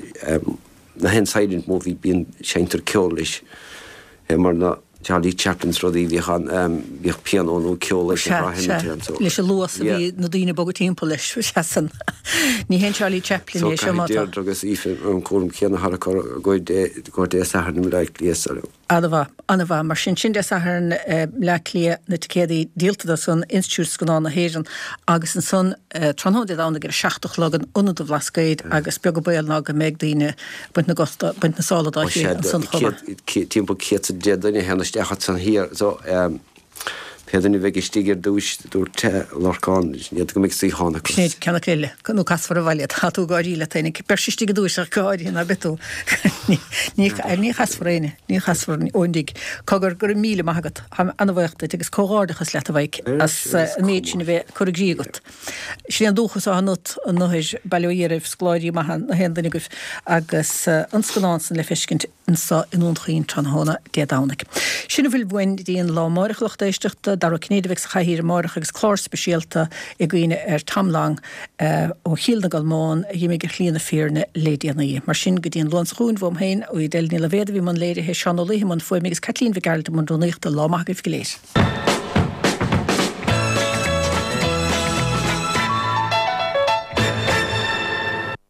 na haon silent movie bíonn seinntear ceol leis é mar na Charlie Chaplins rudaí bhíodh an bhíodh pianó nó ceol leis an Sea, sea, leis an luas a bhí na daoine ag bogadh timpeall leis, sea san. Ní haon Charlie Chaplin é seo má tá. So caithfidh Deirdre agus Aoife an cúram céanna a tharrac go Dé Sathairn i mBleá Cliath so. Ana-mhaith, ana-mhaith. Mar sin, sin Dé Sathairn, Bleá Cliath, na ticéadaí díolta do san, Institiúid Scannán na hÉireann, agus ansan tráthnóna Dé Domhnaigh ar a 7 a chlog in Ionad an Bhlascaoid agus beag an baol ná go mbeidh daoine ag baint na gcosta, baint na sála dá chéile ansan chomh maith. Timpeall 110 duine a théann isteach ansan thiar so pé duine a bheidh istigh ar dtúis, dúirt Lorcán, n'fheadar go mbeidh suíochán acu. Sinéad ceann acu eile, nó casfar abhaile, tá tú ag gáirí leat féin, beirt istigh i dtúis ach go háirithe ná beidh tú. Ní chasfar éinne, ní chasfar ón dtigh. Cogar, go raibh míle maith agat, táim ana-bhaoch duit agus comhghairdeachas leat a Mhaidhc as an méid sin a bheith curtha i gcrích agat. Sin é an dúchas atá ionat, an Uidhir, bail ó Dhia oraibh, scoláirí maithe na haon duine agaibh agus an scannán san le feiscint. anso i nDún Chaoin tráthnóna Dé Domhnaigh. Sin a bhfuil uainn go dtí an lá amáireach a lucht éisteachta. Dara Ó Cinnéide a bheidh sa chathaoir amáireach agus clár speisialta i gcuimhne ar Tom Long ó Chill na gColmán a dh'imigh ar shlí na fírinne le déanaí. Mar sin, go dtí an Luan seo chugainn, uaim féin, Edel Ní Loibhéad a bhí i mbun léirithe, Seán Ó Laoithe i mbun fuaime agus Caitlín Mhic Gearailt i mbun rúnaíochta. Lá maith agaibh go léir.